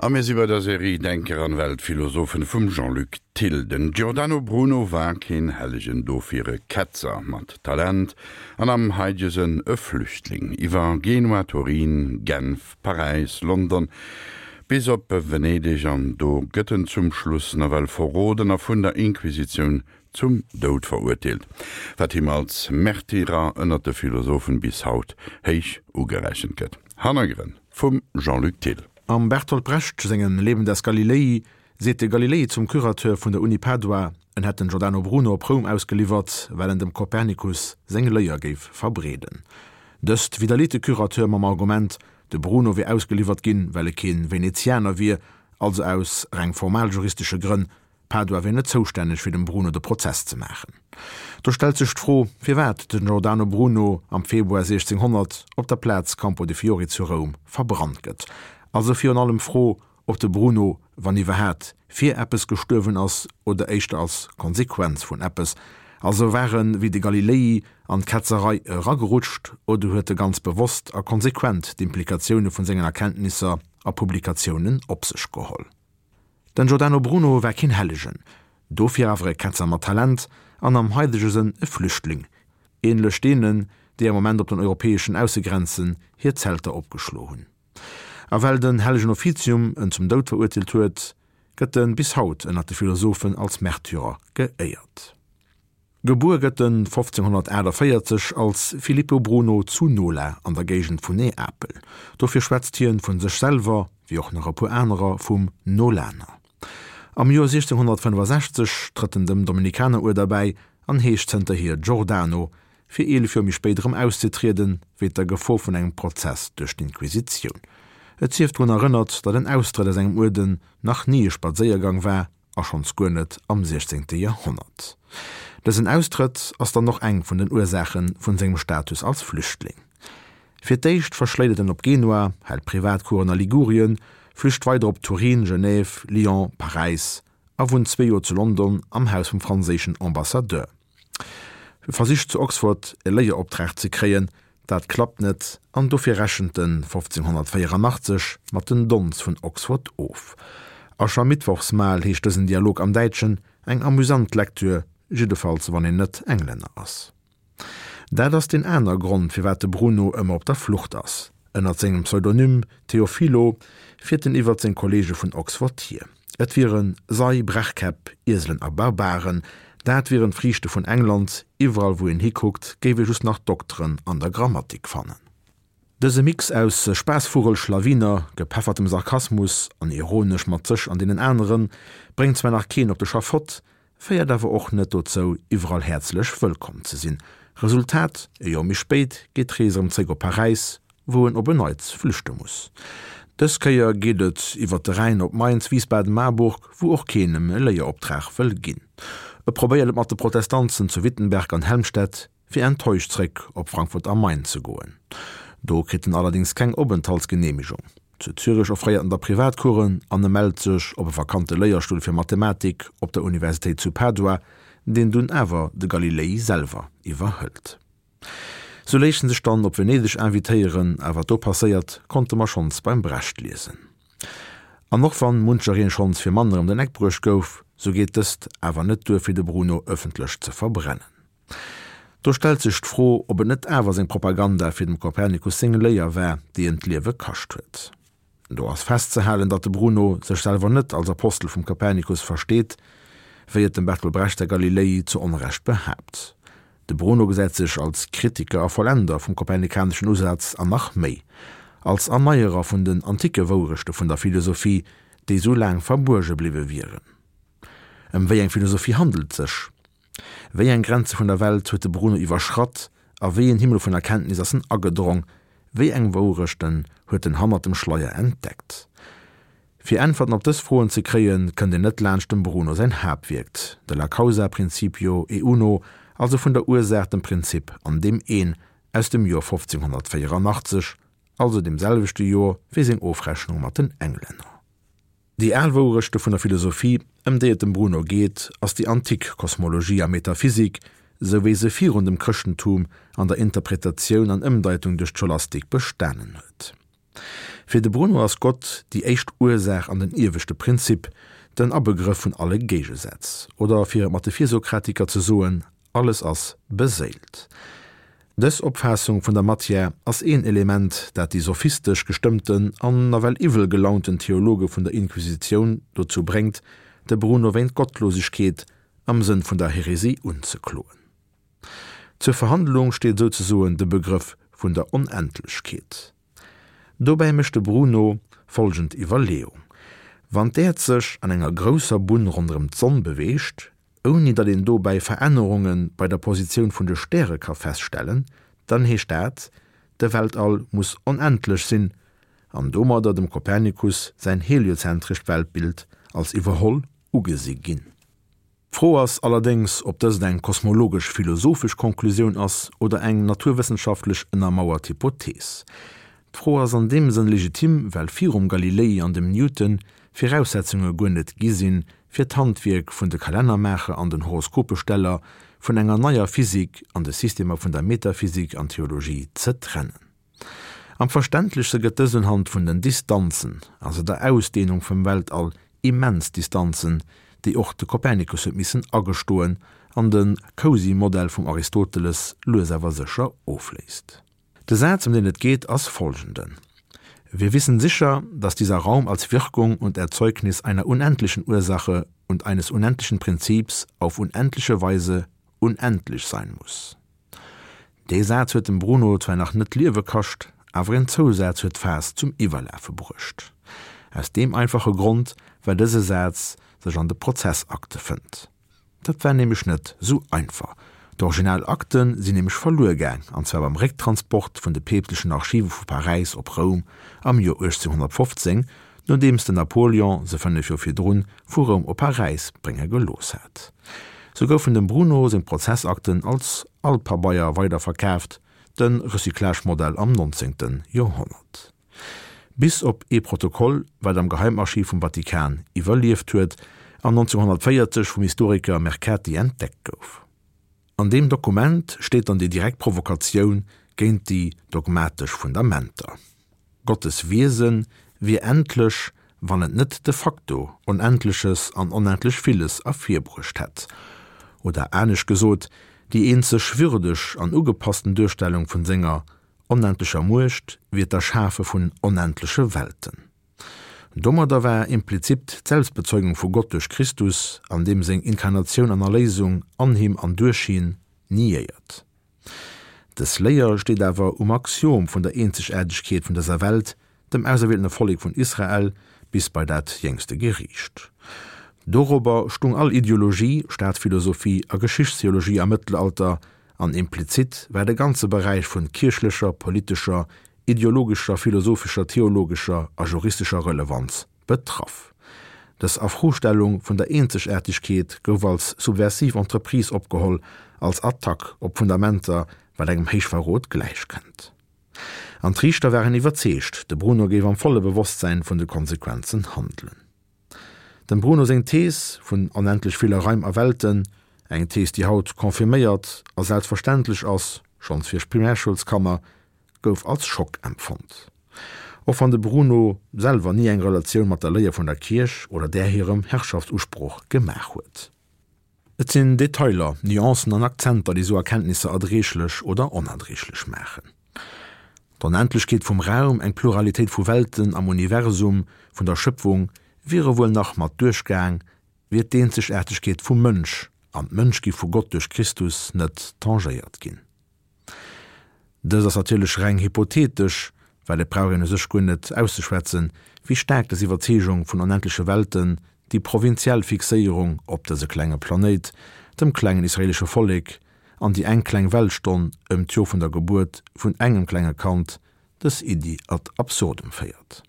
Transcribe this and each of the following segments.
A mir si bei der Serie Denker an Weltphilosophen vum Jean-Luc Thill. Den Giordano Bruno war keen Hellegen, dofir e Ketzer mat Talent an am haidege Sënn e Flüchtling. Iwwer Genua, Turin, Genf, Paräis, London bis op Venedeg an do gëtt en zum Schluss nawell verroden a vun der Inquisitioun zum Doud verurteelt, wat him als Märtyrer ënnert de Philosophen bis haut héich ugerechent gëtt. Hannergrënn vum Jean-Luc Thill. Am Bertolt Brecht sengem Leben des Galilei seet de Galilei zum Curateur vun der Uni Padua, en hätt den Giordano Bruno op Roum ausgeliwwert, well en dem Kopernikus seng Léier géif verbreeden. Dëst widderleet de Curateur mam Argument, de Bruno wier ausgeliwwert ginn, well e keen Venezianer wier, also aus reng formaljuristesche Grënn, Padua wier net zoustänneg fir dem Bruno de Prozess ze maachen. Do stellt sech d'Fro, firwat den Giordano Bruno am Februar 1600 op der Plaz Campo de Fiori zu Roum verbrannt gëtt. Also virun allem d'Fro, ob de Bruno, wann iwwerhaat, fir eppes gestuerwen ass oder éischter als Konsequenz vun eppes. Also war en, wéi de Galilei, an d'Ketzerei eragerutscht oder huet e ganz bewosst a konsequent d'Implikatioune vun sengen Erkenntnisser a Publikatiounen op sech geholl? Den Giordano Bruno war keen Hellegen, dofir awer e Ketzer mat Talent an am haidege Sënn e Flüchtling, ähnlech deenen, déi am Moment op den europäeschen Aussegrenzen hir Zelter opgeschlo hunn. A well den hellegen Offizium en zum Doud verurteelt huet, gëtt en bis haut ënnert de Philosophen als Märtyrer geéiert. Gebuer gëtt en 1548 als Filippo Bruno zu Nola an der Géigend vun Neapel. Dofir schwätzt hien vun sech selwer, wéi och nach e puer anerer, vum Nolaner. Am Joer 1665 trëtt en dem Dominikaneruerder bäi an heescht zënterhier Giordano, fir 11 Joer méi spéit erëm auszetrieden, wéint der Gefor vun engem Prozess duerch d'Inquisitioun. Et sief drun erënnert, datt en Austrëtt aus engem Uerden nach ni e Spadséiergang war, a schonns guer net am 16. Joerhonnert. Dësen Austrëtt ass dann och eng vun den Ursaache vun sengem Status als Flüchtling. Fir d'éischt verschléit et en op Genua, hält Privatcoursen a Ligurien, flücht weider op Turin, Genève, Lyon, Paräis a wunnt zwee Joer zu London am Haus vum franséischen Ambassadeur. E versicht zu Oxford e Léieroptrag ze kréien, dat klappt net an dofir rechent en 1584 mat den Dons vun Oxford of. Aschermittwochsmahl heescht dësen Dialog am Däitschen, eng amüsant Lektür, jiddefalls wann een net Englänner ass. Dat ass deen aner Grond firwat de Bruno ëmmer op der Flucht ass. Ënnert sengem Pseudonym Teofilo fiert en iwwert seng Kolleege vun Oxford hier. Et wiere Sei, Brechkäpp, Ieselen a Barbaren. Dat wieren d'Friichte vun England. Iwwerall wou een hikuckt, géif ee just nach Dokteren an der Grammatik fannen. Dëse Mix aus Spaassvugel, Schlawiner, gepeffertem Sarkasmus an ironesch mat sech an deenen aneren, bréngt zwar nach keen op de Schafott, féiert awer och net dozou, iwwerall häerzlech wëllkomm ze sinn. Resultat, E Joer méi spéit geet d'Rees erëm zréck op Paräis, wou en op en Neits flüchte muss. Dës Kéier geet et iwwer de Rhäin op Mainz, Wiesbaden, Marburg, wou och keen em e Léieroptrag wëll ginn. E probéiert et mat de Protestanzen zu Wittenberg an Helmstedt, fir enttäuscht zréck op Frankfurt am Main ze goen. Do kritt en allerdéngs keng Openthaltsgeneemegung. Zu Zürich offréiert en da Privatcoursen an e mellt sech op e vakante Léierstull fir Mathematik op der Universitéit zu Padua, deen dunn awer de Galilei selwer iwwerhëlt. Sou léisst en sech dann op Venedeg invitéieren, a wat do passéiert, konnte mer schonns beim Brecht liesen. An och wann munchereen schonns fir manner ëm den Eck bruecht gouf, sou geet dëst awer net duer fir de Bruno ëffentlech ze verbrennen. Do stellt sech d'Fro, ob et net awer seng Propaganda fir dem Kopernikus seng Léier war, déi em d'Liewe kascht huet. Do ass festzehalen, datt de Bruno sech selwer net als Apostel vum Kopernikus versteet, wéi et dem Bertolt Brecht säi Galilei zu Onrecht behaapt. De Bruno gesäit sech als Kritiker a Vollender vum kopernikaneschen Usaz an nach méi, als Erneierer vun den anticke Wourechte vun der Philosophie, déi sou laang verbuerge bliwwe wieren. Ëm wéi eng Philosophie handelt et sech? Wéi eng Grenze vun der Welt huet de Bruno iwwerschratt a wéi een Himmel vun Erkenntnis ass en agedrong? Wéi eng Wourechten huet en hannert dem Schleier entdeckt? Fir Äntwerten op dës Froen ze kréien, kënnt een net laanscht dem Bruno säin Haaptwierk, De la causa principio e uno, also Vun der Ursaach, dem Prinzip an deem Een, aus dem Joer 1584, also deem selwechte Joer wéi seng Ofrechnung mat den Englänner. Déi al Wourechte vun der Philosophie, ëm déi et dem Bruno geet, ass déi antik Kosmologie a Metaphysik, sou wéi se virun dem Chrëschtentum an der Interpretatioun an Ëmdeitung duerch d'Scholastik bestanen huet. Fir de Bruno ass Gott déi éischt Ursaach an den ieweschte Prinzip, den Abegrëff vun alle Géigesätz. Oder fir et mat de Virsokratiker ze soen, Alles ass beséilt. Dës Opfaassung vun der Matière ass een Element, dat déi sophistesch gestëmmten an nawell iwwel gelaunten Theologe vun der Inquisitioun dozou bréngt, de Bruno wéint Gottlosegkeet am Sënn vun der Häresie unzekloen. Zur Verhandlung steet souzesoen de Begrëff vun der Onendlechkeet. Dobäi mécht de Bruno folgend Iwwerleeung, Wann d'Äerd sech an enger grousser Bunn ronderëm d'Sonn beweegt, ouni datt een dobäi Verännerunge bei der Positioun vun de Stäre ka feststellen, dann heescht dat, de Weltall muss onendlech sinn an domadder dem Kopernikus säin heliozentrescht Weltbild als iwwerholl ugesi ginn. D'Fro ass allerdéngs, ob dëst eng kosmologesch-philosophesch Konklusioun ass oder eng naturwëssenschaftlech ënnermauert Hypothees. D'Fro ass an deem Sënn legitim, well virum Galilei an dem Newton Viraussetzunge guer net gi sinn, fir d'Handwierk vun de Kalennermaacher an den Horoskopesteller vun enger neier Physik an de Systemer vun der Metaphysik an Theologie ze trennen. Am verständlechste gëtt dëst unhand vun den Distanzen, also der Ausdehnung vum Weltall, immens Distanzen, déi och de Kopernikus huet missen agestoen an de Cosy-Modell vum Aristoteles lues awer sécher ofléist. De Saz, ëm deen et geet, ass folgenden, Wir wissen sicher, dass dieser Raum als Wirkung und Erzeugnis einer unendlichen Ursache und eines unendlichen Prinzips auf unendliche Weise unendlich sein muss. Dee Saz huet dem Bruno zwar nach net d'Liewe kascht, awer en Zousaz huet d'Faass zum Iwwerlafe bruecht. Aus deem einfache Grond, well dëse Saz sech an de Prozessakte fënnt. Dat war nämlech net sou einfach. D'original Akte sinn nämlech verluer gaang, an zwar beim Récktransport vun de peepstlechen Archive vu Paräis op Roum am Joer 1815, nodeems den Napoleon se 5 Joer virdrun vu Roum op Paräis brénge gelooss hat. Sou goufen dem Bruno seng Prozessakten als Alpabeier weiderverkaaft, de Recyclage-Modell am 19. Joerhonnert. Bis op ee Protokoll, wat am Geheimarchiv vum Vatikan iwwerlieft huet an 1940 vum Historiker Mercati entdeckt gouf. An deem Dokument steet dann déi direkt Provokatioun géint déi dogmatesch Fundamenter. Gottes Wiese wier endlech, wann et net de facto Onendleches an onendlech Villes ervirbruecht hätt. Oder anescht gesot, déi eenzeg würdeg an ugepassten Duerstellung vun senger onendlecher Muecht wier d'Erschafe vun onendleche Welten. Domadder war implizit d'Selbstbezeugung vu Gott duerch Christus an deem seng Inkarnatioun an Erléisung an him an duerch hien niéiert. Dës Léier steet awer um Axiom vun der Eenzegaartegkeet vun dëser Welt, dem auserwieltene Vollek vun Israel, bis bei dat jéngste Geriicht. Dorobber stung all Ideologie, Staatsphilosophie a Geschichtstheologie am Mëttelalter, an implizit war de ganze Beräich vun kierchlecher, politescher, ideologescher, philosophescher, theologescher a juristescher Relevanz betraff. Dës Afrostellung vun der Eenzegaartegkeet gouf als subversiv Entreprise opgeholl, als Attack op Fundamenter, wat engem Héichverrot gläichkënnt. An d'Riichter waren iwwerzeegt, de Bruno géif am volle Bewosstsäin vun de Konsequenzen handelen. Dem Bruno seng Thees vun onendlech ville Raim a Welten, eng Thees déi haut confirméiert a selbstverständlech ass, schonns fir Primärschoulskanner, gouf als Schock empfonnt. Och wann de Bruno selwer ni eng Relatioun mat der Léier vun der Kierch oder där hirem Herrschaftsusproch gemaach huet. Et sinn Detailer, Nuancen an Akzenter, déi sou Erkenntnisser erdreeglech oder onerdreeglech maachen. D'Onendlechkeet vum Raum, eng Pluralitéit vu Welten am Universum vun der Schëpfung wiere wuel nach mat duerchgaang, wier d'Eenzegaartegkeet vum Mënsch an d'Mënschgi vu Gott duerch Christus net tangéiert ginn. Dëst ass natierlech reng hypothetesch, well et brauch een u sech guer net auszeschwätzen, wéi staark dës Iwwerzeegung vun onendleche Welten déi provinziell Fixéierung op dëse klenge Planéit, dem klengen israelesche Vollek, an déi eng kleng Weltstonn ëm d'Jor vun der Gebuert vun engem klenge Kand, dës Iddi ad absurdum féiert.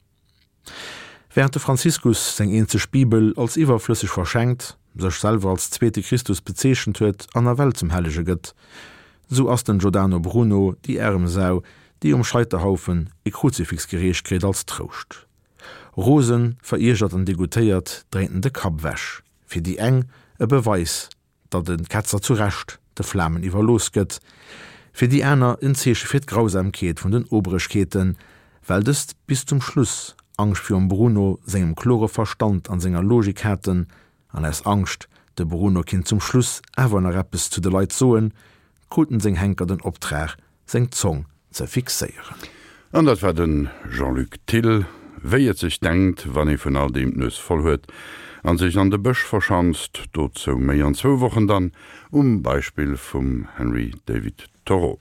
Während de Franziskus seng eenzeg Bibel als iwwerflësseg verschenkt, sech selwer als zweete Christus bezeechent huet an nawell zum Hellege gëtt, sou ass den Giordano Bruno déi aarem Sau, déi um Scheiterhaufen e Kruzifix gereecht kritt als Trouscht. Rosen, veriergert an degoûtéiert dréint en de Kapp ewech. Fir déi eng e Beweis, datt e Ketzer zu Recht de Flamen iwwerlooss gëtt, fir déi aner en Zeeche fir d'Grausamkeet vun den Oberegkeeten, Well dëst bis zum Schluss Angscht virum Bruno sengem klore Verstand an senger Logik haten, an aus Angscht, de Bruno kinnt zum Schluss awer nach eppes zu de Leit soen, kruten seng Henker den Optrag, seng Zong ze fixéieren. An dat war de Jean-Luc Thill. Wéi et sech denkt, wann ee vun all deem d'Nues voll huet an sech an de Bësch verschanzt. Dozou méi an zwou Wochen dann um Beispill vum Henry David Thoreau.